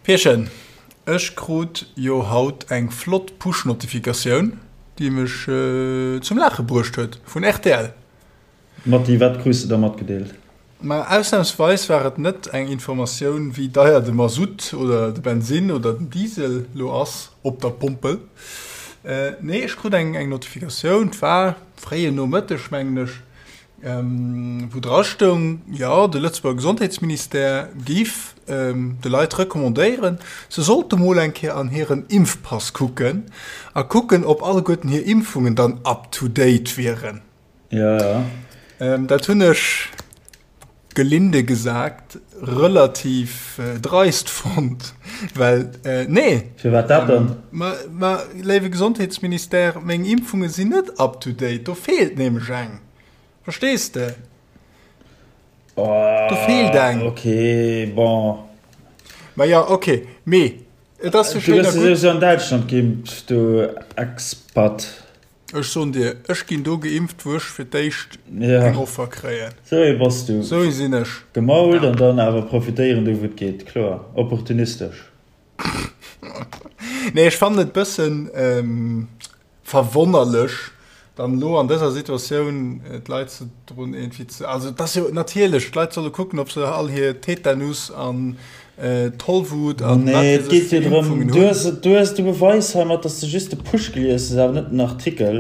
Pierchen, ech krut jo haut eng flott Push-Notifikatioun, déi mech zum Laache bruecht huet, vun rtl. Matti, wat krus de da matgedeelt? Ma ausnamsweis war et net eng Informatioun, wéi deier de Masutt oder de Bensinn oder den Diesel lo ass op der Pompel. Nee, ech krut eng Notifikatioun, 't war fréien Nomëtteg, mengen ech, wou dra stoung, jo, de Lëtzebuerger Gesondheetsministère géif de Leit recommandéieren, se sollte mol eng Kéier an hiren Impfpass kucken a kucken, ob alleguerten hir Impfungen dann up to date wieren. Ja, ja. Dat hunn ech, gelinde gesagt, relativ dreist fonnt, well, nee. Firwat dat dann? Ma, ma, léiwe Gesondheetsministère, meng Impfunge sinn net up to date, do feelt nämlech eng. Verstees de? Oh, Do feelt eng. Okay, bon. Ma ja, okay, mee et ass jo Du schéin a gëss gutt. souwisou an Däitschland geimpft, du Expat. Ech soen dir, ech ginn do geimpft, wou ech fir d'éischt eng Offer kréien. Sou ee bass du. Sou ee sinn ech. Gemault an dann awer profitéieren do wou et geet, kloer. Opportunistesch. Nee, ech fannen et bëssen verwonnerlech, dann elo an dëser Situatioun d'Leit ze drun iergendwéi ze, also et ass jo natierlech, d'Leit solle kucken, ob se all hir Tetanus an Tollwut an wat Nee, et geet jo drëm, du hues, du hues, du beweis heimat, dass de just de Push gelies hues, awer net den Artikel.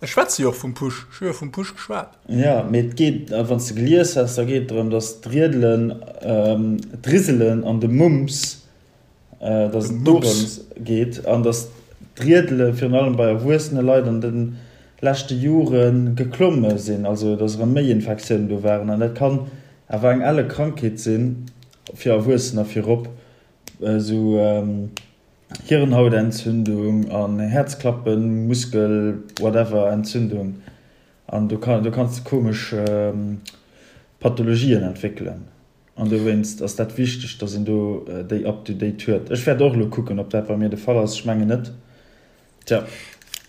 Ech schwätze jo och vum Push, ech hu jo vum Push geschwat. Jo, mee et geet, wann s de gelies häss, da geet et drëm, dass d'Riedelen, d'Riselen an de Mumps, dass et dorëms geet an dass d'Riedele virun allem bei erwuessene Leit an de leschte Jore geklomme sinn, also dass erëm méi Infektiounen do waren an dat kann Awer eng elle Krankheet sinn, fir Erwuessener virop, esou Hirnhautentzündung an Häerzklappen, Muskel whatever Entzündung an do kann do kanns de komesch Pathologien entwéckelen an dowéinst ass dat wichteg, dass een do déi up to date huet. Ech wäert och elo kucken, ob dat bei mir de Fall ass, ech mengen net. Tja.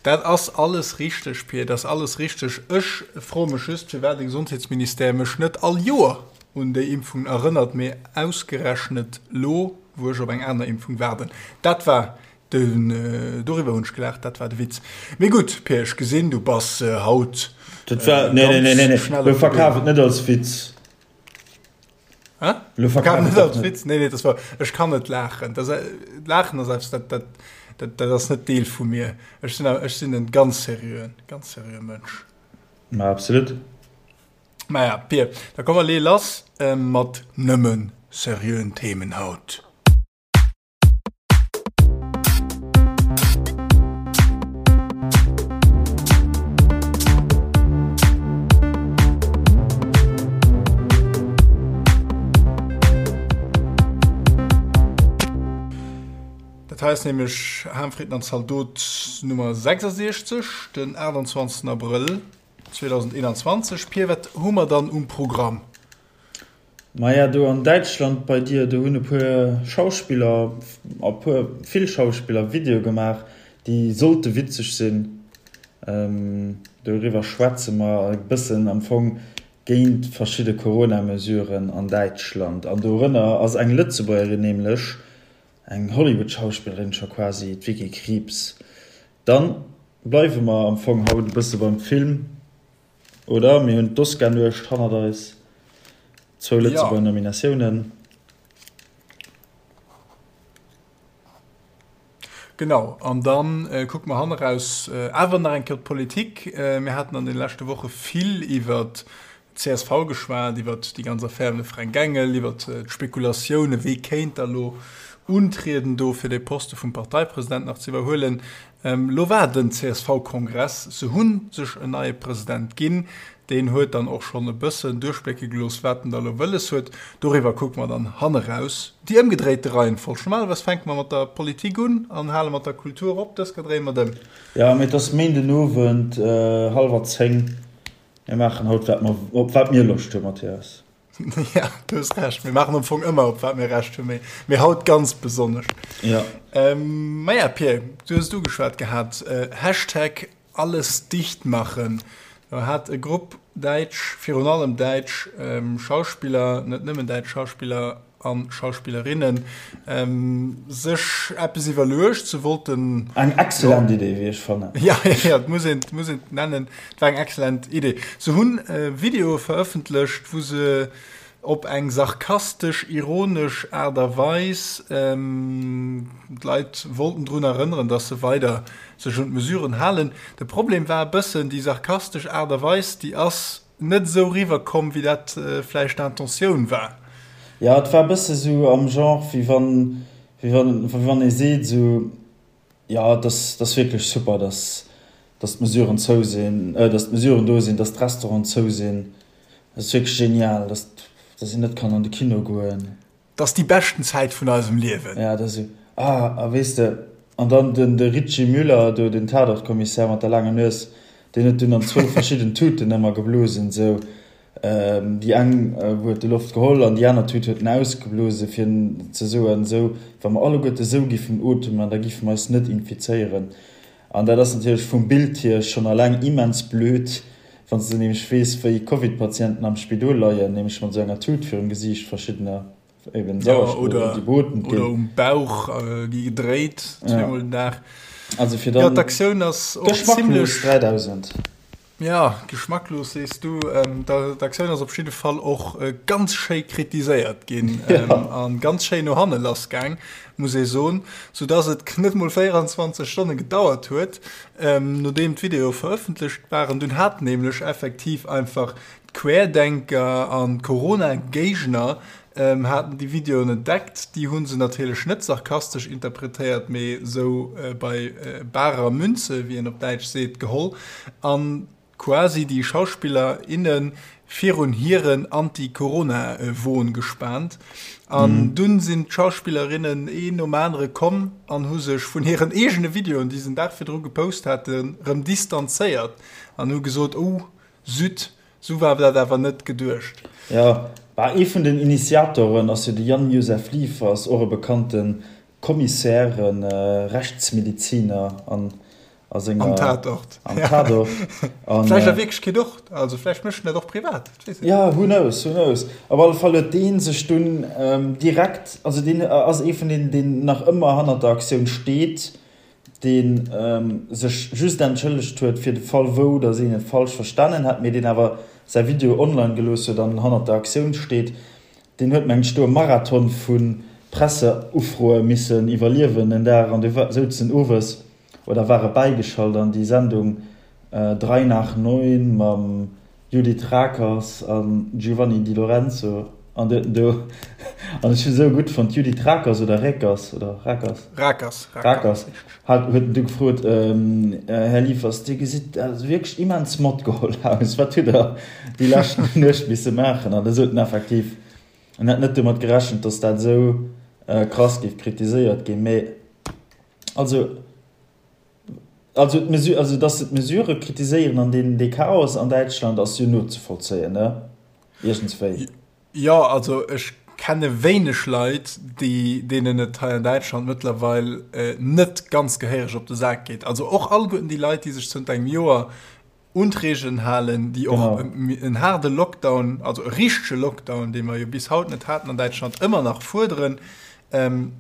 Dat ass alles richteg, Pir, dat ass alles richteg. Ech froe mech just, firwat de Gesondheetsministère mech net all Joer un déi Impfungen erënnert, mee ausgerechnet lo, wou ech op eng aner Impfung waarden. Dat war den, doriwwer hunn ech gelaacht, dat war de Witz. Mee gutt, Pir, ech gesinn, du bass haut Dat war, nee, nee, nee, nee, nee, schnell op de Been. Verkaf et net als Witz. Hä? Lo verkaf verkaf net et als net. Witz. Nee, nee, das war, ech kann net laachen. Das, äh, laachen ass eppes, dat, dat, dat, dat ass net Deel vu mir. Ech sinn, ech sinn en ganz seriöen, ganz seriöe Mënsch. Ma absolut. Maja, Pir, da komm mer lee lass äh, mat nëmmen seriöen Themen haut. Dat hei ass nämlech Harmfrieden an Zaldot Nummer 66, den 28 Abrëll 2021. Pir, wat hu mer dann um Programm? Maja, do an Däitschland bei dir, do hunn e puer Schauspiller, e puer, vill Schauspiller Videoe gemaach, déi sollte witzeg sinn. Doriwwer schwätze mer e bëssen am Fong géint verschidde Corona-Mesuren an Däitschland. An dorënner ass eng Lëtzebuergerin, nämlech eng Hollywood-Schauspillerin scho quasi, d'Vicky Krieps. Dann bleiwe mer am Fong haut e bësse beim Film. Oder? Mir hunn d'Oscar-Nuecht hannert eis, zwou Lëtzebuerger Nominatiounen. Genau, an da kucke mer hanneraus awer nach eng Kéier op d'Politik. Mir haten an de leschte Woche vill iwwer d'CSV geschwat, iwwer déi ganz Affär ëm de Fränk Engel, iwwer d'Spekulatioune wee kéint da lo untrieden do fir dee Poste vum Parteipresident nach ze iwwerhuelen. Lo war den CSV-Kongress, se hu sech en neie President ginn. Deen huet dann och schonn e bëssen duerchblécke gelooss, wat en da lo wëlles huet. Doriwwer kucke mer dann hanneraus. Déi ëmgedréite Reihenfolg. Normalerweis fänke mer mat der Politik un an hale mat der Kultur op. Dës Kéier dréie mer et ëm. Jo, mee et ass Méindenowend, hallwer 10. Mir maachen haut, wat mer, op wat mir Loscht hunn, Mathias. Ja, du hues Recht. Mir maachen am Fong ëmmer, op wat mir Recht hunn, mee, mee haut ganz besonnesch. Ja. Ähm, maja, Pir, du hues et ugeschwat gehat, äh, Hashtag alles dicht machen. Do hat e Grupp däitsch, virun allem däitsch ähm, Schauspiller, net nëmmen däitsch Schauspiller. a Schauspillerinnen sech eppes iwwerluecht. Se wollten. Eng excellent Idee, wéi ech fannen. Ja, ja, et muss een, et muss een et nennen, et war eng excellent Idee. Se hunn Videoe verëffentlecht, wou se op eng sarkastesch, ironesch Aart a Weis d'Leit wollten drun erënneren, dass se weider sech un d'Mesuren halen. De Problem war e bëssen, déi sarkastesch Aart a Weis, déi ass net esou riwwer komm, wéi dat vläicht d'Intentioun war. Jo, et war e bësse sou am Genre, wéi wann, wéi wann, wéi wann ee seet esou, jo, et ass, et ass wierklech super, dass, dass d'Mesuren zou sinn, dass d'Mesuren do sinn, dass d'Restauranten zou sinn. Et ass wierklech genial, dass, dass een net kann an de Kino goen. 't ass déi beschten Zäit vun eisem Liewen. Ja, dat ass esou. Ah, a weess de, an dann den, de Richy Müller do, den Tatort-Kommissär mat der laanger Nues, deen huet dunn an zwou verschidden Tuten ëmmer geblosen, esou. Déi eng huet e Loft geholl an déi aner Tut huet en ausgeblose fir ze soen, esou, wa mer alleguerte esou giffen otemen, da giffe mer eis net infizéieren. An dat ass natierlech vum Bild hier schonn alleng immens blöd, wann s de nämlech weess, wéi Covid-Patienten am Spidol leien, nämlech mat esou enger Tut virum Gesiicht, verschiddener eben Sauerstoff, déi beotemt ginn. Oder um Bauch gi gedréit, zweemol den Dag. Also fir dann. Jo, d'Aktioun ass och zimmlech. Geschmacklos 3000. Jo, geschmacklos sees du. D'Aktioun ass op jidde Fall och ganz schéi kritiséiert ginn a ganz schéi no hanne lass gaang, muss ee soen, soudass et net mol 24 Stonne gedauert huet, nodeem d'Videoe verëffentlecht waren. Dunn haten nämlech effektiv einfach d'Querdenker an d'Corona-Géigner haten déi Videoen entdeckt. Déi hu se natierlech net sarkastesch interpretéiert, mee sou bei barer Münze, wéi een op Däitsch seet, geholl an quasi déi Schauspiller, inne virun hiren Anti-Corona-Won gespaant. An dunn sinn d'Schauspillerinnen een nom anere komm an hu sech vun hiren eegene Videoen, déi se den Dag virdru gepost haten, rëm distanzéiert an hu gesot, Oh, Zut, Sou war dat awer net geduecht. Jo, bah, ee vun den Initiatoren ass jo de Jan-Josef Liefers, och e bekannte Commissaire, Rechtsmediziner an a senger. Am Tatort. Am Tatort. An. Vläicht a Wierklechkeet och, also vläicht mécht en dat och privat, dat weess een net. Jo, who knows, who knows. Op alle Fall huet dee sech dunn direkt, also deen ass ee vun deenen, deen nach ëmmer hannert der Aktioun steet, dee sech just entschëllegt huet fir de Fall wou datt een et falsch verstanen hätt, mee deen awer säi Video online gelooss huet an hannert der Aktioun steet, deen huet mengt ech do e Marathon vu Presseufroe missen iwwerliewen en Dag an du souz en owes oder war e bäigeschalt an déi Sendung Drei nach neun mam Judith Rakers a Giovanni Di Lorenzo an du huet en do, an ech hu sou gutt fonnt, Judith Rakers oder Rekers oder Rakers? Rakers, Rakers, hat huet en du gefrot, Här Liefers, Dir gesitt also wierklech immens matgeholl aus, wat hutt Der déi lescht Nuecht misse maachen? An da sot en effektiv, en hätt net domat gerechent, datt dat esou krass géif kritiséiert ginn, mee also. Also d'Mesure, also dass se d'Mesurë kritiséieren an deen dee Chaos an Däitschland ass jo nozevollzéien, ne? Iergendswéi. Jo, also ech kenne wéineg Leit, déi, deenen et hei an Däitschland mëttlerweil net ganz gehéiereg op de Sak geet. Also och alleguerten déi Leit, déi sech zënter engem Joer un d'Reegelen halen, déi och en haarde Lockdown, also e richtege Lockdown, dee mer jo bis haut net haten an Däitschland, ëmmer nach fuerderen,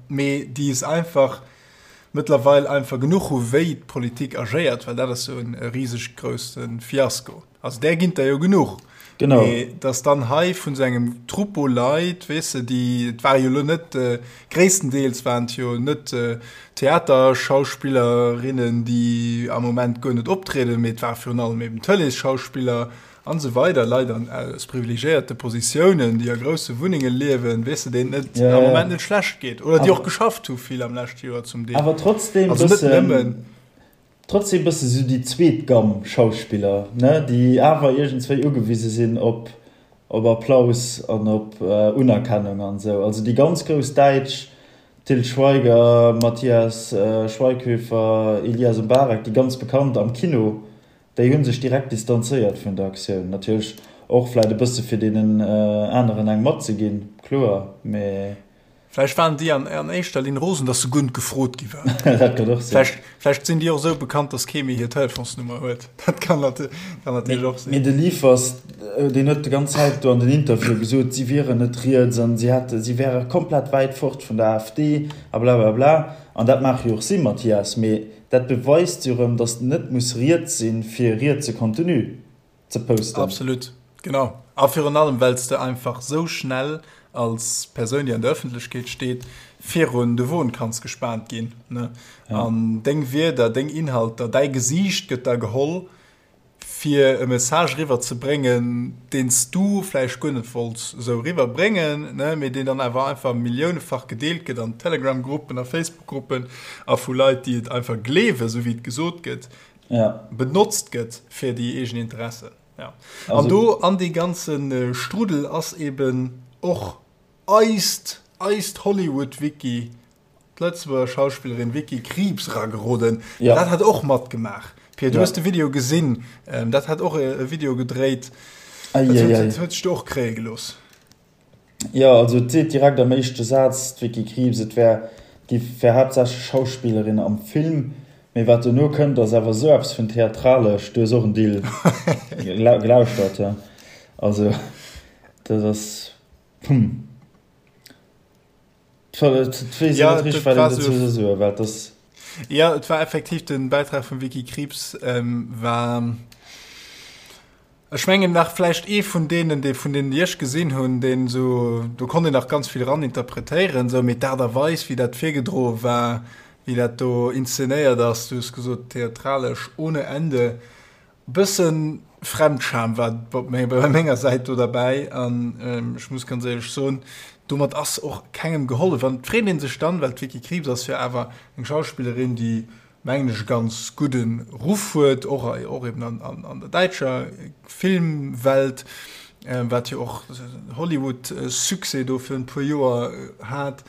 mee déi es einfach mëttlerweil einfach genuch hu wéi d'Politik agéiert, well dat ass jo e riseg grousse Fiasko. Also där ginn der jo genuch. Genau. Mee dass dann hei vun esou engem Troupeau Leit, weess de, déi, et ware jo elo net, gréisstendeels waren et jo net Theaterschauspillerinnen, déi am Moment guer net optrieden, mee et ware virun allem eben Tëleesschauspiller an esou weider, Leit an aus privilegiéierte Positiounen, déi a grousse Wunnenge liewen, weess de, deenen et am Moment net schlecht geet oder déi och geschafft hu vill am leschte Joer zum Deel. Awer trotzdem Also net nëmmen. Trotzdem bësse sou déi zweet Gamm Schauspiller, ne, déi awer iergendswéi ugewise sinn op op Applaus an op Unerkennung an esou. Also déi ganz grouss Däitsch, Til Schweiger, Matthias Schweighöfer, Elyas M'Barek, déi ganz bekannt am Kino, déi hu sech direkt distanzéiert vun der Aktioun. Natierlech och vläit e bësse fir deenen aneren eng matzeginn, kloer, mee. Vläicht waren déi an, an éischter Linn rosen, dass se guer net gefrot gi waren. Dat kann och sinn. Vläicht, vläicht sinn déi och esou bekannt, dass kee méi hir Telefonsnummer huet. Dat kann, nat kann natierlech och sinn. Mee de Liefers, deen huet déi ganz Zäit do an den Interviewe gesot, si wieren net riets an si hätte, si wäre komplett wäit fort vun der AfD a blablabla. An dat mag jo och sinn, Mathias, mee dat beweist jo erëm, dass net muss riets sinn, fir rietse Contenu ze posten. Absolut, genau. A virun allem, well s de einfach sou schnell als Persoun, déi an der Ëffentlechkeet steet, virun de Won kanns gespaant ginn, ne? An deng Wierder, deng Inhalter, däi Gesiicht gëtt da geholl, fir e Message eriwwer ze bréngen, deen s du vläicht guer net wollts esou eriwwer bréngen, ne, mee deen dann awer einfach milliounefach gedeelt gëtt an Telegram-Gruppen a Facebook-Gruppen a vu Leit, déi et einfach gleewen, esou wéi et gesot gëtt. ja. benotzt gëtt fir déi eegen Interessen. Ja. An do an dee ganze Strudel ass eben och eist, eist Hollywood-Vicky, d'Lëtzebuerger Schauspillerin Vicky Krieps erageroden. Ja. Dat hat och matgemaach. Pia, du ja. hues de Video gesinn. Ähm, dat hat och e Video gedréit. Ei, Dat ei, huet, ei. huet sech do och kréie gelooss. Jo, also et seet direkt am éischte Saz d'Vicky Krieps, et wär, giff, wär haaptsächlech Schauspillerin am Film, mee wat dono kënnt ass awer esou eppes vun theatralesch, du hues och en Deel gelauschtert, jo, also dat ass, hm, et weess een Ja, net richteg dat wat war een dozou sou, soll soen, well et ass. jo, et war effektiv den Bäitrag vum Vicky Krieps war. Ech mengen nach vläicht ee vun deenen, dee vun deenen, déi ech gesinn hunn, deen esou, do konnt een nach ganz vill eraninterpretéieren, esou, mee d'Aart a Weis, wéi dat virgedroe war, wéi dat do inszenéiert ass, du hues gesot theatralesch ohne Ende, e bësse Fremdscham war op bei menger Säit do derbäi an ech muss ganz éierlech soen, domat ass och kengem gehollef. An et freet ee sech dann, well d'Vicky Krieps ass jo awer eng Schauspillerin, déi mengen ech, e ganz gudde Ruff huet, och och eben an, an, an der däitscher Filmwelt, wat jo och Hollywood-Succès do virun e puer Joer hat,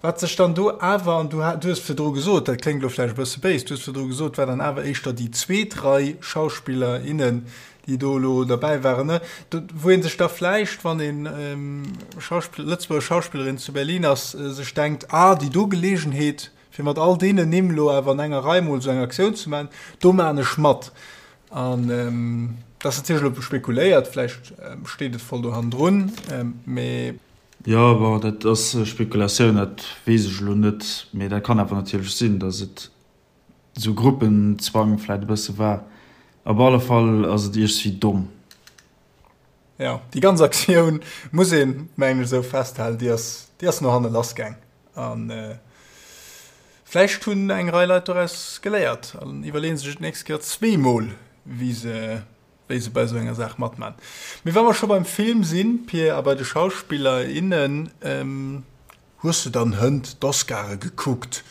wat sech dann do awer, an du du hues virdru gesot, dat kléngt elo vläicht e bësse béis, du hues virdru gesot, war dann awer éischter déi zweet Rei Schauspiller, innen, déi do elo derbäi waren, ne, do, wou ee sech da vläicht, wann een Schauspill, Lëtzebuerger Schauspillerin zu Berlin ass, sech denkt, ah, déi do Geleegenheet, Fir mat all deenen Nimm elo awer an enger Rei mol esou eng Aktioun ze maachen, do maachen ech mat. An dat ass natierlech elo spekuléiert, vläicht steet et voll do hannendrun, mee. Jo, bon, dat ass Spekulatioun, dat weess ech elo net. Mee dat kann awer natierlech sinn, datt et esou Gruppenzwang vläicht e bësse war. Op alle Fall ass et iergstwéi domm. Jo, déi ganz Aktioun, muss een, mengen ech, esou festhalen, déi ass, déi ass no hanne lassgaang. A vläicht hunn eng Rei Leit doraus geléiert an iwwerleeë sech et d'nächst Kéier zweemol, wéi se, wéi se bei esou enger Saach matman. Mee wa mer scho beim Film sinn, Pir, a bei de Schauspiller, innen, hues de dann hënt d'Oscare gekuckt,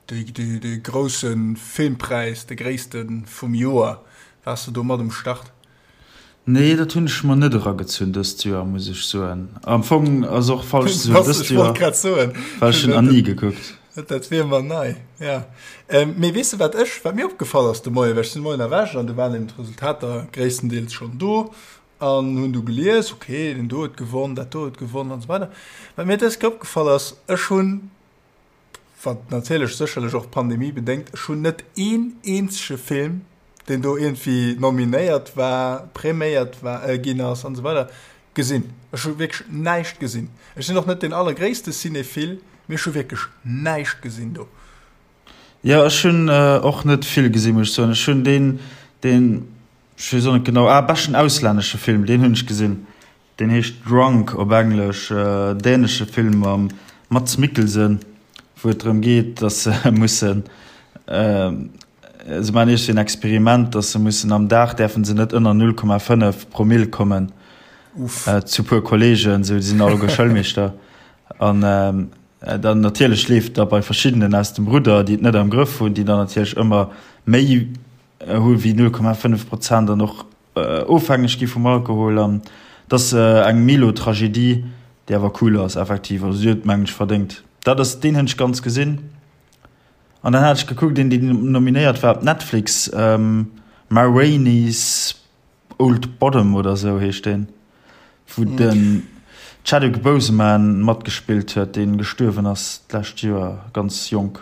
dee, dee, dee grousse Filmpräis, de gréisste vum Joer? Waars de do mat um Start? Nee, dat hunn ech mer net eragezunn dëst Joer, muss ech soen. Am Fong ass och falsch ze soen dëst Joer, well ech hunn Annie gekuckt. Dat wier mer nei, ja. Mee weess de wat ech, wat mir opgefall ass de Moien, well ech sinn de Moien erwächt an du waren eben d'Resultater gréisstendeels schonn do an hunn du gelies, ok, deen do huet gewonn, dat do huet gewonn an esou weider. Wat mir dës Kéier opgefall ass, ech hunn, wat natierlech sécherlech och d'Pandemie bedéngt, ech hunn net een eenzege Film, deen do iergendwéi nominéiert war, präméiert war, ginn ass an esou weider, gesinn. Ech hu wierklech näischt gesinn. Ech sinn och net deen allergréisste Cinéphile, mee ech hu wierklech näischt gesinn do. Jo, ech hunn och net vill gesinn, muss ech soen. Ech hunn deen, deen, ech weess och net genau, ah, beschten auslännesche Film, deen hunn ech gesinn. Deen heescht Drunk op Englesch, dänesche Film mam Mads Mikkelsen, wou et drëm geet, datt se mussen, se maachen iergendwéi en Experiment, datt se mussen am Dag däerfe se net ënner 0,5 Promill kommen zu puer Kolleegen, sou, déi sinn alleguer Schoulmeeschter. An dann natierlech leeft da bei verschiddenen aus dem Rudder, déi et net am Grëff hunn, déi dann natierlech ëmmer méi hu wéi 0,5 Prozent an och ofhängeg gi vum Alkohol an et ass eng Milo-Tragedie, déi awer cool ass effektiv. Also si huet mengen ech verdéngt. Dat ass deen hunn ech ganz gesinn. An dann hat ech gekuckt een deen nominéiert war op Netflix, Ma Rainey's Old Bottom oder sou heescht deen, wou den. Chadwick Boseman matgespillt huet, dee gestuerwen ass d'lescht Joer, ganz jonk.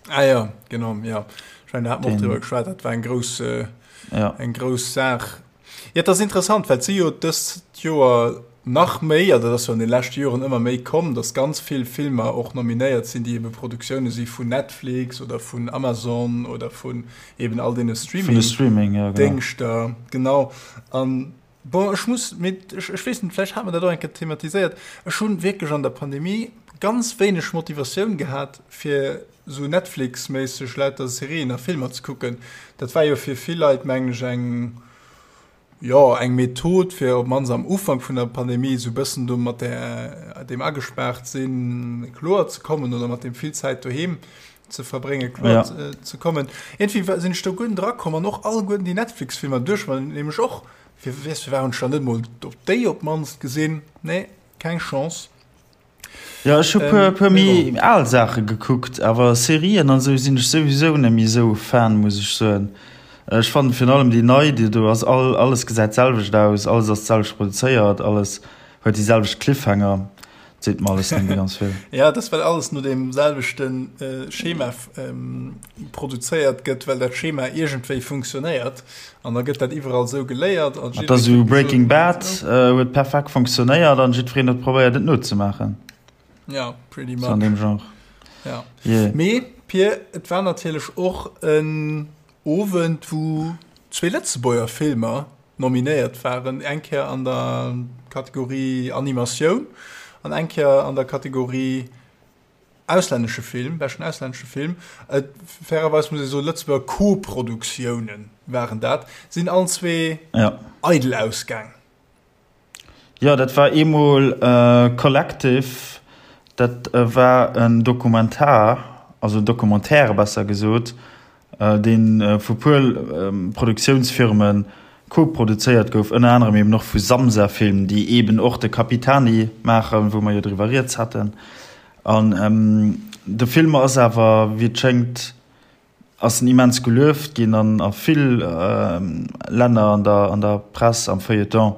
Ah ja, genau, ja. Ech mengen, do hate mer och driwwer geschwat, dat war eng grouss, ja. eng grouss Saach. Ja, et ass interessant, well et si jo dëst Joer nach méi, also dat ass jo an de leschte Joren ëmmer méi komm, datt ganz vill Filmer och nominéiert sinn, déi ebe Produktioune si vun Netflix oder vun Amazon oder vun eben all deene Streaming-Déngschter. Genau. An bon, ech muss, mee ech, ech weess net, vläicht hate mer dat och eng Kéier thematiséiert, ech hu wierklech an der Pandemie ganz wéineg Motivatioun gehat, fir esou Netflix-méisseg lauter Serien a Filmer ze kucken. Dat war jo fir vill Leit, mengen ech, eng, jo, eng Method, fir op d'mannst am Ufank vun der Pandemie esou e bëssen do mat där, deem agespaart sinn kloer ze kommen oder mat deem vill Zäit doheem ze verbrénge kloer ja. ze kommen. Iergendwéi sinn ech do guer net erakomm an och alleguerten déi Netflix-Filmer duerch mer nämlech och. Fir weess, firwat hunn ech dann net mol op déi op d'mannst gesinn? Nee, keng Chance. Jo, ech hu puer, puer méi al Saache gekuckt, awer Serien an esou sinn ech souwisou net méi esou Fan, muss ech soen. Ech fannen virun allem déi nei, déi do ass, all, alles gesäit d'selwecht aus, alles ass d'selwecht produzéiert, alles huet déi selwecht Cliffhanger. Seet mer alles net méi ganz vill. Ja, dat ass well alles no deem selwechte Schema produzéiert gëtt, well dat Schema iergendwéi funktionéiert an da gëtt dat iwwerall esou geléiert. An dat ass esou Breaking Bad huet perfekt funktionéiert an jiddwereen huet probéiert et nozemaachen. Ja, pretty much. Sou an deem Genre. Ja. Yeah. Mee Pir, et war natierlech och en Owend, wou zwee Lëtzebuerger Filmer nominéiert waren, eng Kéier an der Kategorie Animatioun an eng Kéier an der Kategorie auslännesche Film, beschten auslännesche Film. Et, fairerweis muss ee soen, Lëtzebuerger Koproduktiounen waren dat, sinn allen zwee ja. eidel ausgaang. Jo, dat war eemol Collective, dat war en Dokumentar, also en Documentaire besser gesot, dee vu puer Produktiounsfirme koproduzéiert gouf, ënner anerem eben och vu Samsa Film, déi eben och de Capitani maachen, wou mer jo driwwer rieds haten. An de Film ass awer, wéi et schéngt, ass en immens gelueft ginn an a vill Länner an der an der Press, am Feuilleton.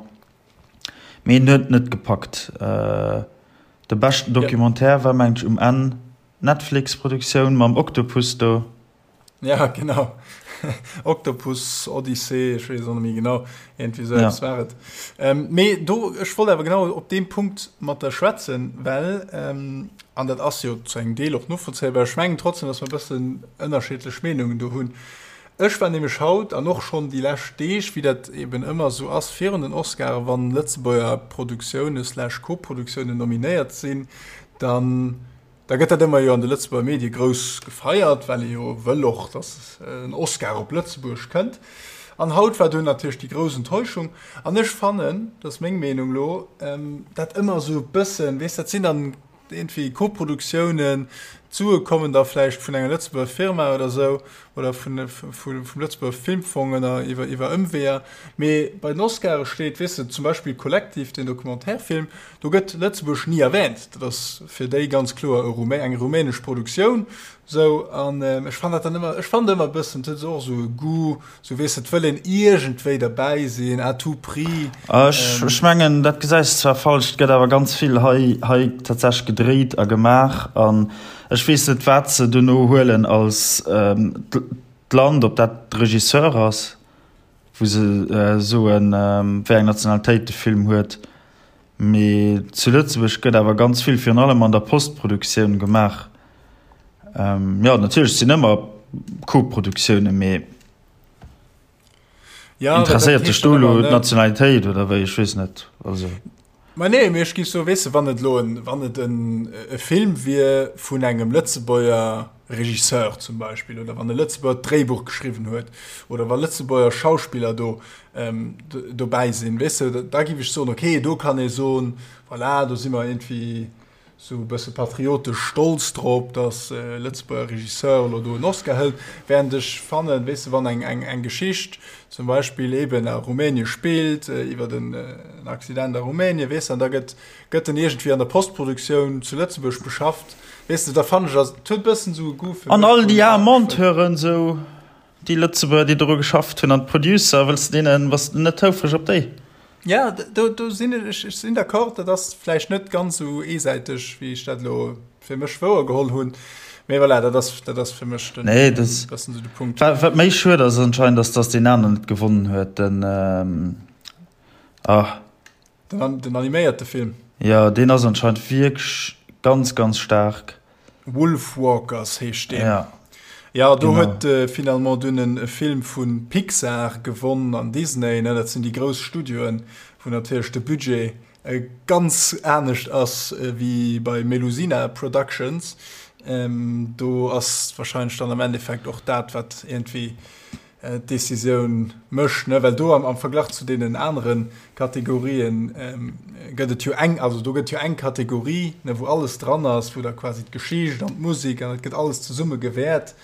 Mee en huet net gepackt. De beschten Documentaire war mengen ech um Enn d'Netflix-Produktioun mam Oktopus do. Ja, genau. Oktopus Odyssee, ech weess et och net méi genau. Iergendwéi esou eppes war et. Mee do, ech wollt awer genau op deem Punkt mat der schwätzen, well, an dat ass jo zu engem Deel och novollzéibar, ech mengen trotzdem, datt mer e bëssen ënnerschiddlech Meenungen do hunn. Ech war nämlech haut an och schonn déi lescht Deeg, wéi dat eben ëmmer esou ass virun den Oscaren, wann Lëtzebuerger Produktioune slash Koproduktiounen nominéiert sinn, dann Da gëtt dat ëmmer jo an de Lëtzebuerger Medie grouss gefeiert, well ee jo wëll och, datt en Oscar op Lëtzebuerg kënnt. An haut war dunn natierlech déi grouss Enttäuschung. An ech fannen, dat ass meng Meenung elo, dat ëmmer esou e bëssen, weess, dat sinn dann iergendwéi Koproduktiounen, d'Sue kommen da vläicht vun enger Lëtzebuerger Firma oder esou oder vun, vum Lëtzebuerger Filmfong ënner, iwwer, iwwer Ëmweeër. Mee bei den Oscare steet, weess de, zum Beispill Collective, deen Documentaire-Film, Do gëtt Lëtzebuerg ni erwähnt. Dat ass fir déi ganz kloer e Rumä, eng rumänesch Produktioun. Sou, an ech fannen dat dann ëmmer, ech fannen ëmmer e bëssen, et huet esou och esou e Goût, sou weess de, et wëll een iergendwéi derbäi sinn, à tout prix. Ech, ech mengen, dat gesäis de zwar falsch, et gëtt awer ganz vill hei, hei tatsächlech gedréit a gemaach an ech weess net, wat se dono huelen als d'Land, ob dat de Regisseur ass, wou se soen, wéi eng Nationalitéit de Film huet. Mee zu Lëtzebuerg gëtt awer ganz vill, virun allem an der Postproduktioun gemaach. Jo, natierlech sinn ëmmer Koproduktiounen, mee interesséiert dech do elo d'Nationalitéit oder wéi? Ech weess net. Also. Ma nee, mee ech géif soen, weess de, wann et elo en, wann et en e Film wier vun engem Lëtzebuerger Regisseur zum Beispill oder wann e Lëtzebuerger d'Dréibuch geschriwwen huet oder wa Lëtzebuerger Schauspiller do dobäi sinn, weess de, da géif ech soen, okay, do kann ee soen, voilà, do si mer iergendwéi esou e bësse patriotesch stolz drop, datt e Lëtzebuerger Regisseur elo do en Oscar hëlt. Während ech fannen, weess de, wann eng, eng, eng Geschicht zum Beispill eeben a Rumänie spillt, iwwer en Accident a Rumänie, weess de, an da gëtt, gëtt en iergendwéi an der Postproduktioun zu Lëtzebuerg beschafft, weess de, da fannen ech, ass, et huet e bëssen esou e Goût fir An mech all déi aar Monteuren esou, déi Lëtzebuerger, déi doru geschafft hunn, an d'Producer, wëlls de deenen, bass de net houfreg op déi? Ja, do, do sinn ech, ech sinn d'accord, dat ass vläicht net ganz esou eesäiteg, wéi ech dat elo fir mech wouer geholl hunn. Mee voilà, dat ass, dat ass fir mech den, nee, das, bëssen esou de Punkt. Wat, wat méi schued ass anscheinend, ass, dass deen aneren net gewonnen huet, den, ähm, ah. Den, den animéierte Film. Jo, deen ass anscheinend wierklech ganz, ganz staark. Wolfwalkers heescht deen. Ja. Ja, do huet äh, finalement dunn e Film vu Pixar gewonn an Disney, ne? Dat sinn déi grouss Studioen, wou natierlech de Budget äh, ganz anescht ass äh, wéi bei Melusina Productions. Ähm, do ass wahrscheinlech dann am Endeffekt och dat, wat iergendwéi d'Decisioun mécht, ne, well do am, am Verglach zu deenen anere Kategorien ähm, gëtt et jo eng, also do gëtt jo eng Kategorie, ne, wou alles dran ass, wou da quasi d'Geschicht an d'Musek an et gëtt alles zesumme gewäert,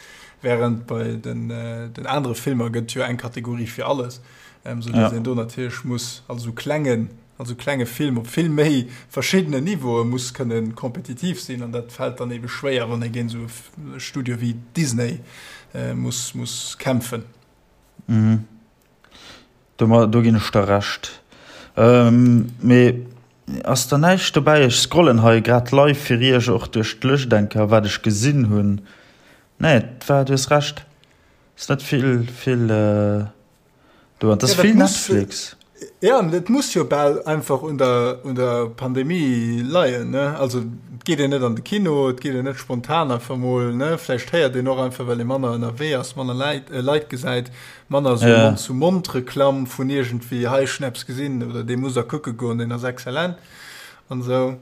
während bei den, äh, den anere Filmer gëtt jo eng Kategorie fir alles, ähm, sou dass ja. een do natierlech muss also sou klengen, also klenge Film op vill méi verschiddenen Niveaue muss kënnen kompetitiv sinn an dat fält dann ebe schwéier, wann ee géint esou e Studio wéi Disney muss, muss kämpfen. Mhm. Do, do ginn ech der Recht. Ähm, mee ass da näischt dobäi? Ech scrollen hei grad live fir iech och duerch d'Lëscht eng Kéier, wat ech gesinn hunn. Nee, et war, du hues Recht, ass net vill, vill. Äh Do, an das ja, vill muss, Netflix. Ja, et muss jo bal einfach un der, un der Pandemie leien. Ne? Also et geet een net an de Kino, et geet een net spontan einfach mol. Ne? Vläicht héiert een och einfach, well ee manner ënnerwee ass, manner Leit, äh, Leit gesäit, manner so ja. Mond-zu-Mond-Reklamm vun iergendwéi hei schnaps gesinn oder dee muss der kucke goen, deen ass exzellent an esou.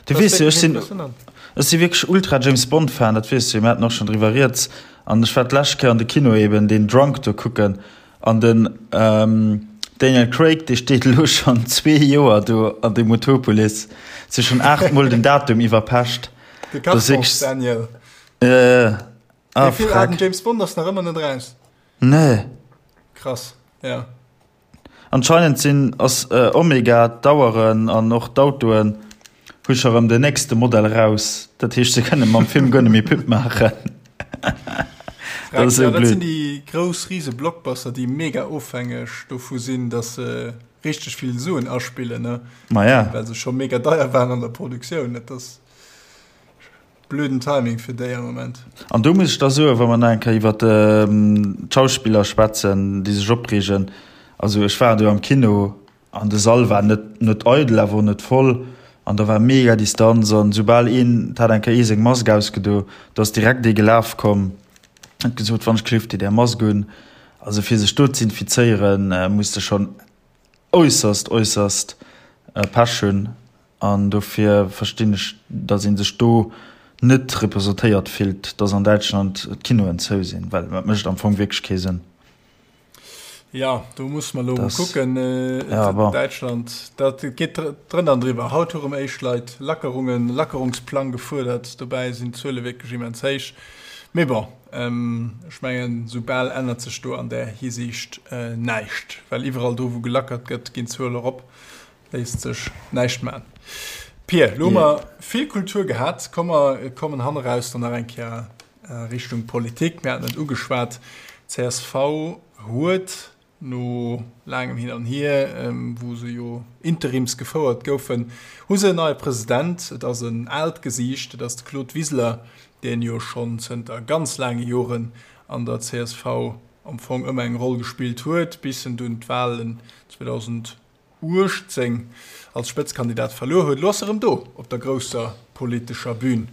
Du weess jo, ech sinn, ech si wierklech ultra James Bond Fan, dat weess du jo, mir haten och schonn driwwer rieds. An ech war d'lescht Kéier an de Kino eben deen Drunk do kucken an den Daniel Craig, dee steet elo schonn zwee Joer do an deem Utopolis, si schonn 8 mol den Datum iwwerpecht. De Carpence Daniel. Ah, Dee Film, ah, den James Bond ass nach ëmmer net raus. Nee. Krass, ja. Anscheinend sinn ass Omega d'Aueren an och d'Autoen hu scho rëm den nächste Modell raus. Dat heescht se kënne mam Film guer net méi Pub maachen. Dat ass esou blöd. Dat sinn déi grouss rise Blockbuster déi mega ofhängeg dovu sinn, datt se richteg vill Suen aspillen, ne? Ma ja. Well se scho mega deier waren an der Produktioun. Dat ass. Blöden Timing fir déi am Moment. An do muss ech da soen, wa mer nach eng Kéier iwwert d'Schauspiller schwätzen, déi sech opreegen, also ech war do am Kino an de Sall war net net eidel, awer och net voll an da war mega Distanz an soubal een, et hat eng Kéier ee seng Mask ausgedo, do ass direkt ee gelaf komm, huet gesot, wann ech kleeft dir är Mask un. Also fir sech do z'infizéieren, muss de schonn äusserst, äusserst Pech hunn. An dofir verstinn ech, datt ee sech do net representéiert fillt, datt an Däitschland d'Kinoen zou sinn, well dat mécht am Fong wierklech kee Sënn. Jo, do musse mer elo mol kucken. Däitschland, dat geet drënner an driwwer. Haut hu rëm éischt Leit Lackerungen, Lackerungsplang gefuerdert. Dobäi sinn d'Zuele wierklech immens héich. Mee bon, ech mengen, esou bal ännert sech do an där Hisiicht näischt, well iwwerall do, wou gelackert gëtt, ginn d'Zuele erop. Léisst sech näischt man. Pir, lo hu mer vill Kultur gehat. Komm mer kommen hanneraus dann nach eng Kéier Richtung Politik. Mir haten et ugeschwat, csv huet no laangem Hin an Hier, wou se jo interims gefouert goufen, hu se en neie President. Et ass en aalt Gesiicht, et ass de Claude Wiseler, deen jo schonn zënter ganz laange Joren an der csv am Fong ëmmer eng Roll gespillt huet, bis en dunn d'Wahlen 2000. 18 als Spëtzkandidat verluer huet. Elo ass e rëm do op der grousser politescher Bühn.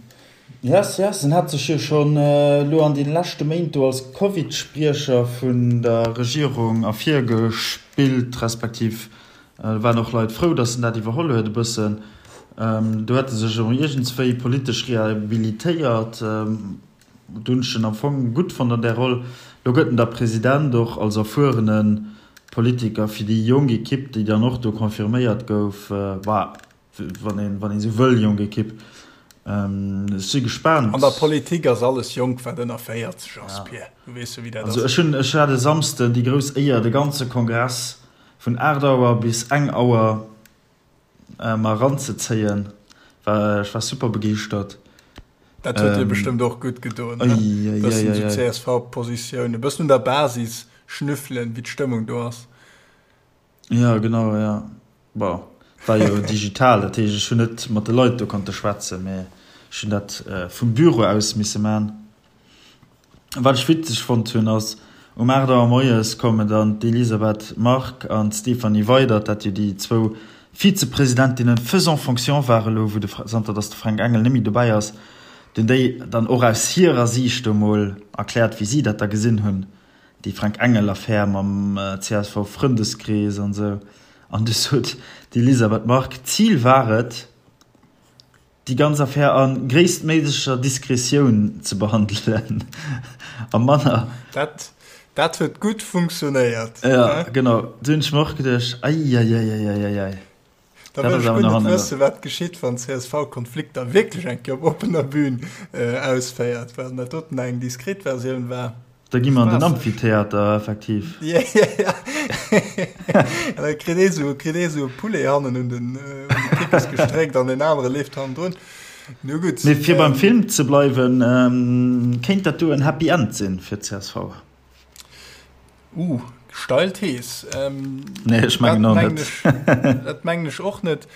Yes, yes, en hat sech jo schonn elo an deene leschte Méint do als Covid-Spriecher vun der Regierung ervirgespillt, respektiv waren och Leit frou, datt en dat iwwerholl huet e bëssen. Do huet e sech erëm iergendswéi politesch rehabilitéiert. Do hunn ech en am Fong gutt fonnt an där Roll. Lo gëtt en da President, och als erfuerene Politiker fir déi jonk Ekipp, déi dann och do confirméiert gouf. Bah, wann een, wann een esou wëll, jonk Ekipp. Ech si gespaant. An der Politik ass alles jonk, wat ënner 40 ass, Pir. Du weess jo, wéi dat ass. Also ech hunn, ech hat e Samsden déi grouss Éier, de ganze Kongress vun 8 Auer bis eng Auer mer eranzezéien. War, ech war super begeeschtert. Dat huet dir bestëmmt och gutt gedoen, ne? E bëssen esou CSV-Positioun, e bëssen un der Basis schnüffelen, wéi d'Stëmmung do ass. Jo, genau, jo. Bon, war jo digital, dat heescht, ech hunn net mat de Leit do konnte schwätzen, mä ech hunn dat vum Büro aus misse man. Wat ech witzeg fonnt hunn, ass, um 8 Auer moies kommen dann d'Elisabeth Margue an d'Stéphanie Weydert, dat jo déi zwou Vizepresidentinnen faisant fonction ware lo, wou de, zanter datt de Fränk Engel net méi dobäi ass, hunn déi dann och aus hirer Siicht do mol erkläert, wéi si dat da gesinn hunn, déi Fränk Engel-Affär mam CSV-Frëndeskrees an esou. An du sot d'Elisabeth Margue, D'Zil war et, déi ganz Affär a gréisstméiglecher Diskretioun ze behandelen a manner. Dat, dat huet gutt funktionéiert. Ja, genau. Du hunn ech mer och geduecht, Eieieiei. Da wëll ech guer net wëssen, wat geschitt, wann csv Konflikter wierklech eng Kéier op oppener Bühn ausféiert, well dat doten eng diskret Versioun war. Da gi mer an den Amphitheater, effektiv. Ja, ja, ja. An da kritt ee sou, kritt ee sou e Poulet hannen un den, un de Kippes gestréckt an deen anere leeft hannendrun. Nu gutt. Mee fir beim Film ze bleiwen, kéint dat do en Happy End sinn fir d'CSV? Uh, steil Thees. Nee, ech mengen och net. Dat mengen ech och net.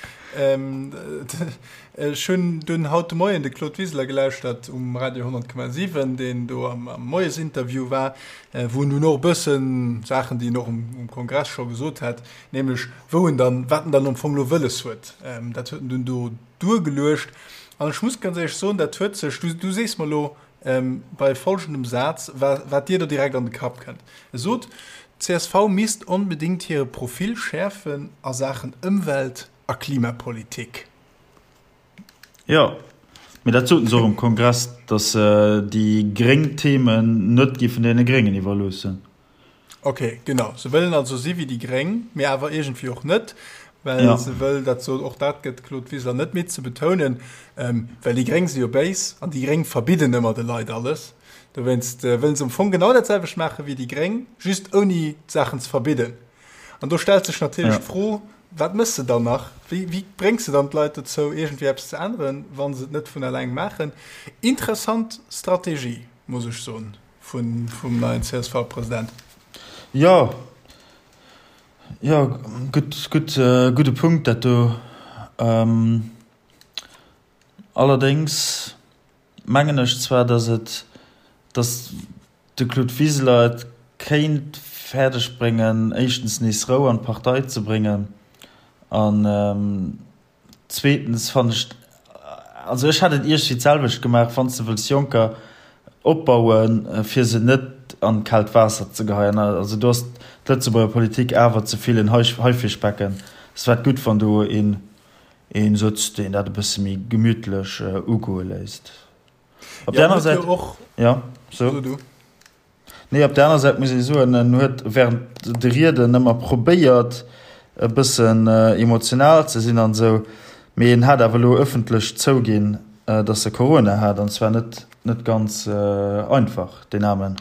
Ech hunn dunn haut de Moien de Claude Wiseler gelauschtert um Radio 100,7, deen do am Moiesinterview war, wou en dunn och e bëssen Saachen, déi en och um Kongress scho gesot hat, nämlech wou en dann, wat en dann am Fong elo wëlles huet, dat huet en dunn do duergeluecht. An ech muss ganz éierlech soen, dat huet sech, du sees mer elo, bei folgendem Saz, wat dir do direkt an de Kapp kënnt. E sot, d'CSV misst onbedéngt hire Profil schäerfen a Saachen Ëmwelt a Klimapolitik. Jo, mee dat soten se och um Kongress, datt se déi gréng Themen net géifen deene Gréngen iwwerloossen. Ok, genau. Se wëllen also si wéi déi Gréng, mee awer iergendwéi och net, well ja. se wëll, dat sot och dat gëtt Claude Wiseler net midd ze betounen, ähm, well déi Gréng si jo béis an déi Gréng verbidden ëmmer de Leit alles. Dowéinst äh, wëllen se am Fong genau dat selwecht maache wéi déi Gréng, just ouni d'Saachen ze verbidden. An do stellt sech natierlech ja. d'Fro, wat mëss de dann nach? Wéi, wéi bréngs de dann d'Leit dozou, iergendwéi eppes ze änneren, wa se et net vun eleng maachen? Interessant Strategie, muss ech soen. Vun, vum neien CSV-President. Jo, jo, gutt, gutt, gudde Punkt dat do. Allerdéngs mengen ech zwar, datt et, datt de Claude Wiseler et kéint fäerdeg bréngen, éischtens nees Rou an d'Partei ze bréngen an, Zweetens fannen ech, also ech hätt et iergwéi d'selwecht gemaach, wann s de wëlls Jonker opbauen, fir se net an d'kaalt Waasser ze geheien. Also do ass d'Lëtzebuerger Politik awer ze vill en Haifischbecken. Es wär gutt, wann do een sëtzt, deen dat e bësse méi gemütlech ugoe léisst. Op där anerer Säit, jo, so. Nee, op der aner Säit muss ee soen, en huet während de Rieden ëmmer probéiert e bëssen emotional ze sinn an esou, mee en hat awer elo ëffentlech zouginn, datt e Corona hat, an zwar net net ganz einfach deen Aarmen.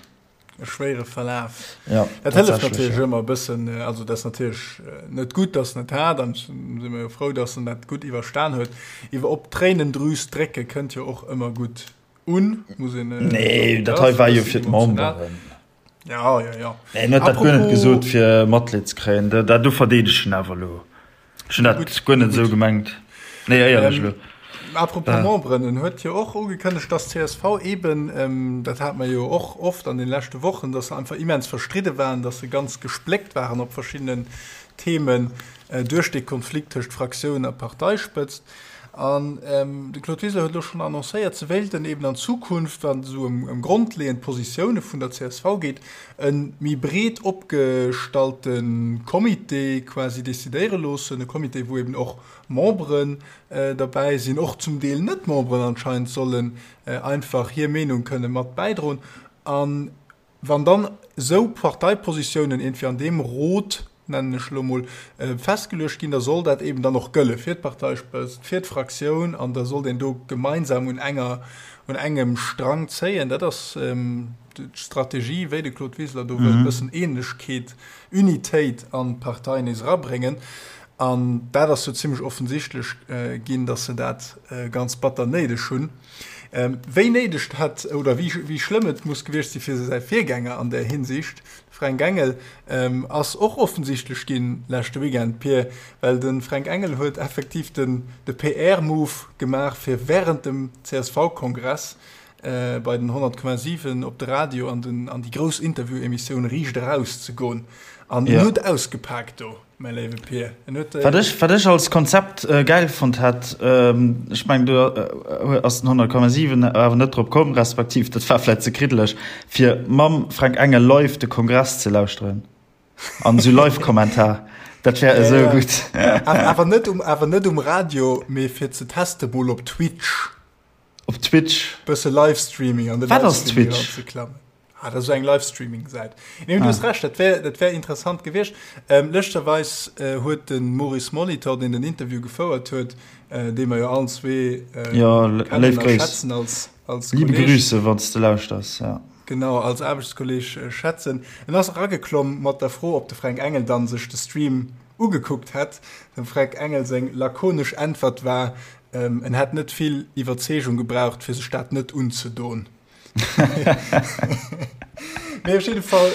E schwéiere Verlaf. Ja, dat hëlleft natierlech ëmmer e bëssen. Also dat ass natierlech net gutt, datt en et hat, an si mer jo frou, datt en dat gutt iwwerstan huet. Iwwer op d'Tréinendrüs drécke kënnt jo och ëmmer gutt Un, muss een. Äh, nee, dat hei war jo fir d'Memberen. Ja, ja, ja. Nee, en huet dat guer net gesot fir Matleed ze kréien. Dat, dat do verdeedeg en awer elo. Ech hunn dat guer net esou gemengt. Nee, éierlech elo. Ähm, apropos äh. Memberen, en huet jo och ugekënnegt, dass csv eben, ähm, dat hat mer jo och oft an den leschte Wochen, dass se einfach immens verstridde waren, dass se ganz gespléckt waren op verschiddenen Themen äh, duerch de Konflikt tëscht Fraktioun a Parteispëtzt. An de Claude Wiseler huet elo schonn annoncéiert, se wéilten eben an Zukunft, wann et esou ëm grondleeënd Positioune vun der csv geet, e méi breet opgestallte Comité quasi decidéiere loossen. E Comité, wou eben och Memberen derbäi sinn, och zum Deel Net-Memberen anscheinend sollen einfach hir Meenung kënne mat bäidroen. An Wann dann esou Parteipositiounen iergendwéi an deem Rot, nennen ech elo mol, festgeluecht ginn, da soll dat eben dann och gëlle fir d'Parteispëtzt, fir d'Fraktioun an da sollt een do gemeinsam un enger, un engem Strang zéien. Dat ass d'Strategie, wéi de Claude Wiseler do wëllt e bëssen Eenegkeet, Unitéit an d'Partei nees erabréngen. An dat ass jo zimlech offensichtlech ginn, datt se dat ganz batter néideg hunn. Wéi néideg dat oder wéi wéi schlëmm et muss gewiescht si fir säi Virgänger an där Hinsicht, de Fränk Engel, ass och offensichtlech ginn leschte Weekend, Pir, well de Fränk Engel huet effektiv den de PR-Move gemaach, fir wärend dem CSV-Kongress bei den 100,7 op de Radio an den an déi grouss Interview-Emissioun Riicht Eraus ze goen. An en huet ausgepaakt do, mäi léiwe Pir. En huet. Wat ech, wat ech als Konzept gäil fonnt hätt, ech mengen do ass den 100,7 awer net drop komm, respektiv dat war vläit ze kriddeleg, fir mam Fränk Engel live de Kongress ze lauschteren an esou Live-Kommentar, dat wär esou gutt. Awer net um, awer net um Radio, mee fir ze teste mol op Twitch. Op Twitch. Bësse Livestreaming an de Wat ass Twitch? Ze ah, dat ass eng Livestreaming-Säit. Nee, du ah. hues recht, dat wär, dat wär interessant gewiescht. Ähm, Lëschterweis äh, huet den Maurice Molitor, deen den Interview gefouert huet, äh, dee mer jo allen zwee äh, ja, kennen a schätzen als, als Liebe Grüße, wann du lauschters. Ja. Genau, als Aarbechtskolleg äh, schätzen. En ass erageklomm mat der Fro, ob de Fränk Engel dann sech de Stream ugekuckt hätt. Dem Fränk Engel seng lakonesch Äntwert war, En hätt net vill Iwwerzeegung gebraucht, fir sech dat net unzedon. Mee op jidde Fall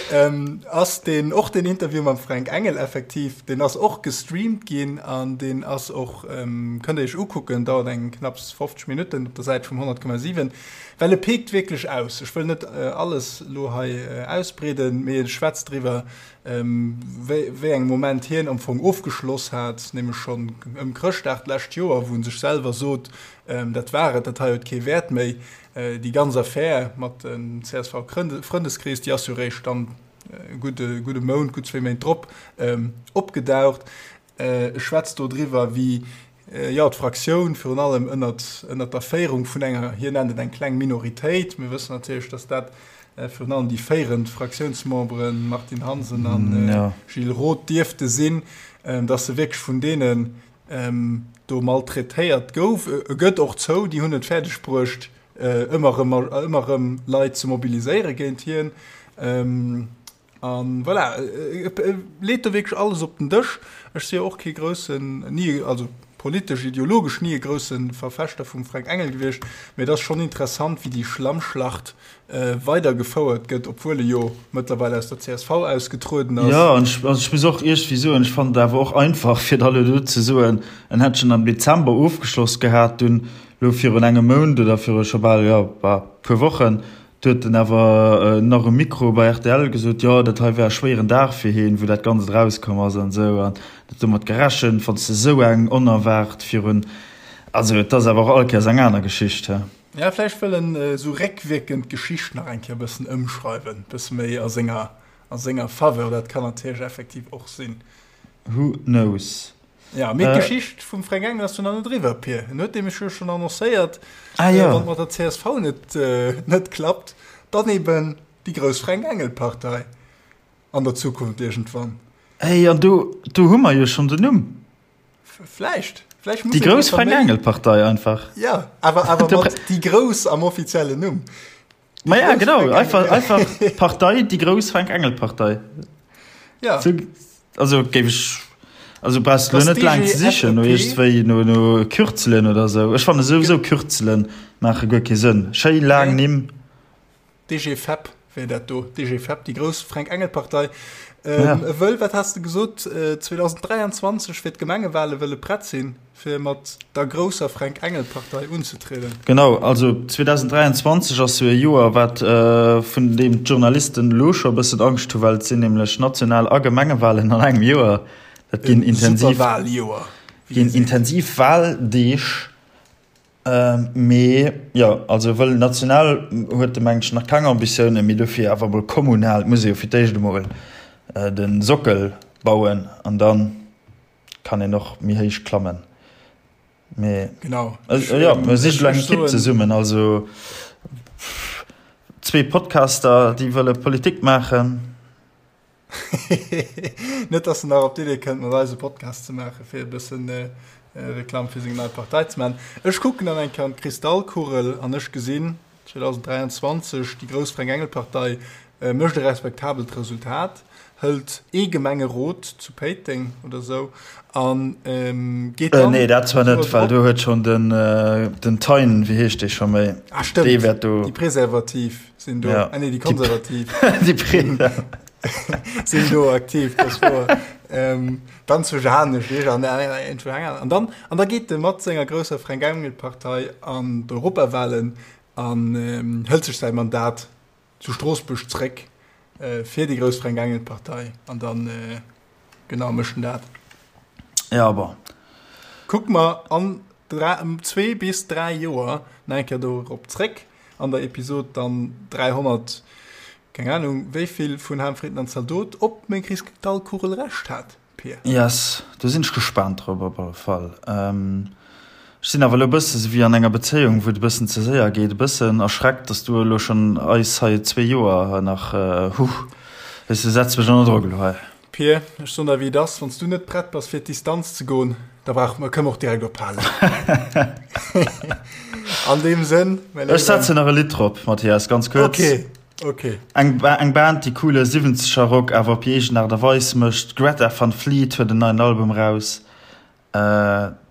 ass deen, och deen Interview mam Fränk Engel effektiv, deen ass och gestreamt ginn an deen ass och, kënnt der iech ukucken, dauert eng knapps 50 Minutten op der Säit vum 100,7, well e peekt wierklech aus. Ech wëll net alles elo hei ausbreeden, mee e schwätzt driwwer, wéi engem Moment hien am Fong ofgeschloss hat, nämlech schonn ëm Chrëschtdag d'lescht Joer, wou en sech selwer sot, dat war et, dat hei huet kee Wäert méi. Déi ganz Affär mat dem CSV-Frëndeskrees, déi ass jo eréischt dann e gudde, gudde Mount, gutt zwéi Méint drop opgedaucht. E schwätzt do driwwer, wéi, jo, d'Fraktioun virun allem ënnert, ënnert der Féierung vun enger, hien nennt et eng kleng Minoritéit, mir wëssen natierlech, datt dat virun allem déi féierend Fraktiounsmemberen Martine Hansen a Gilles Roth dierfte sinn, datt se wierklech vun deenen do maltraitéiert gouf. E gëtt och zou, déi hunn et fäerdeg bruecht, ëmmer erëm, ëmmer erëm Leit ze mobiliséiere géint hien. An voilà, e leet do wierklech alles op den Dësch. Ech si jo och kee groussen, ni, also politesch, ideologesch ni e grousse Verfechter vum Fränk Engel gewiescht, mee et ass schonn interessant, wéi déi Schlammschlacht weidergefouert gëtt, obwuel e jo mëttlerweil aus der csv ausgetrueden ass. Jo, an ech, also ech muss och iergendwéi soen, ech fannen et awer och einfach, fir da elo do ze soen, en hätt schonn am Dezember ofgeschloss gehat, dunn elo virun engem Mount oder viru scho bal, jo, bah, puer Wochen, Du huet en awer nach um Mikro bei rtl gesot, jo, dat hei wär e schwéieren Dag fir hien, wou dat Ganzt erauskomm ass an esou. An huet domat gerechent, wann s de esou eng onerwaart virun, also et ass awer och all Kéiers eng aner Geschicht, he. Ja, vläicht wëll en esou réckwierkend d'Geschicht nach eng Kéier e bëssen ëmschreiwen, e bësse méi a senger, a senger Faveur. Dat kann natierlech effektiv och sinn. Who knows? Ja, mee d'Geschicht vum Fränk Engel ass jo nach net eriwwer, Pir. En huet nämlech jo schonn annoncéiert, ah, ja. wann et mat der csv net, äh, net klappt, dann eben déi grouss Fränk Engel Partei an der Zukunft iergendwann. Ey, an do, do hu mer jo schonn den Numm. Vläicht. Vläicht muss déi grouss Fränk Engel Partei einfach. Ja, awer, awer mat déi grouss am offiziellen Numm. Ma ja, genau, einfach, einfach Partei, déi grouss Fränk Engel Partei. Ja. So, also géif ech, also brauchst du net laang ze sichen no iergendwéi no, no Kürzelen oder sou. Ech fanne souwisou Kürzelen maache guer kee Sënn. Schéi laang Nimm. DGFEP wär dat do, DGFEP, déi grouss Fränk Engel Partei. Ähm, ja. Wëll, wat has de gesot, 2023 fir d'Gemengewale wëlle prett sinn? Fir mat der grousser Fränk-Engel-Partei unzetrieden. Genau, also 2023 ass jo e Joer, wat vun deem d'Journalisten elo scho e bëssen Angscht hu, well et sinn nämlech National a Gemengewalen an engem Joer. Dat ginn intensiv, ginn intensiv Waldeeg. Mee jo, also wëll national huet de mengt ech nach keng Ambitiounen, mee dofir awer emol kommunal muss ee jo fir d'éischt emol de Sockel bauen an dann. Kann een och méi héich klammen. Mee genau. Äh, ja, mir si eng Ekipp zesummen, also zwee Podcaster, déi wëlle Politik maachen. Net, dass en nach op d'Idee kënnt, mat eis e Podcast ze maachen, fir e bëssen äh, Reklamm fir seng nei Partei ze maachen. Ech kucken dann eng Kéier an d'Kristallkugel an ech gesinn 2023 déi grouss Fränk-Engel-Partei. Mécht e respektabelt Resultat, hëlt ee Gemengerot zu Péiteng oder sou a geet dann. Nee, dat zwar net, well do huet schonn den, den Thein, wéi heescht dee scho méi? Ah, stëmmt, dee wäert do. Déi Preservativ sinn do, ah nee, déi Konservativ. Déi Pre. Sinn do aktiv, dat ass wouer. Dann zu Janesch, an dann, an da geet e mat senger grousser Fränk-Engel-Partei an d'Europawahlen an hëlt sech säi Mandat zu Stroossbuerg zréck fir déi grouss Fränk Engel Partei an dann genau mécht en dat. Ja bon. Kucke mer an zwee bis 3 Joer nach eng Kéier dorop zréck an der Episod dann 300, keng Ahnung wéivill vun Ham Fritten an Zaldot, ob meng Kristallkugel Recht hat. Pir. Yes, do sinn ech gespaant drop op alle Fall. Ech sinn awer elo e bësse sou wéi an enger Bezéiung, wou et e bëssen ze séier geet, e bëssen erschreckt, dass du elo schonn eis hei zwee Joer nach, huh, weess de, setz mech ënner Drock elo hei. Pir, ech soen der wéi et ass, wann s du net prett bass fir d'Distanz ze goen, da brauche mer, kënne mer och direkt ophalen. An deem Sënn, mäi Léiwen. Ech setzen nach e Lidd drop, Mathias, ganz kuerz. Okay. Ok. Eng eng Band déi coole siwwenzeger Rock awer op hir eegen Aart a Weis mécht. D'Greta Van Fleet huet en neien Album raus.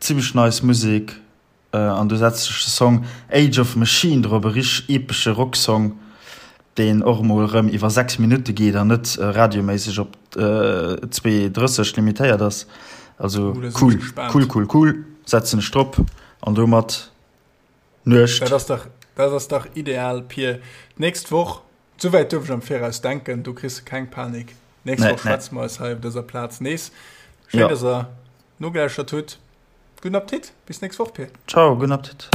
Zimmlech nice Musek an do setzt sech de Song Age of Machine drop, e richteg epesche Rocksong deen och emol erëm iwwer 6 Minutte geet an net radioméisseg op 2,30 limitéiert ass. Also cool, cool, cool, cool, setzen ech drop an domat Nuecht. Dat ass dach, dat ass dach ideal, Pir. D'nächst Woch, souwäit duerf ech am Viraus denken, do kriss de keng Panik. D'nächst Woch schwätze mer eis hei op dëser Plaz nees. Schéin, dass der nogelauschtert hutt. Gudden Appetit, bis d'nächst Woch, Pir. Ciao, gudden Appetit.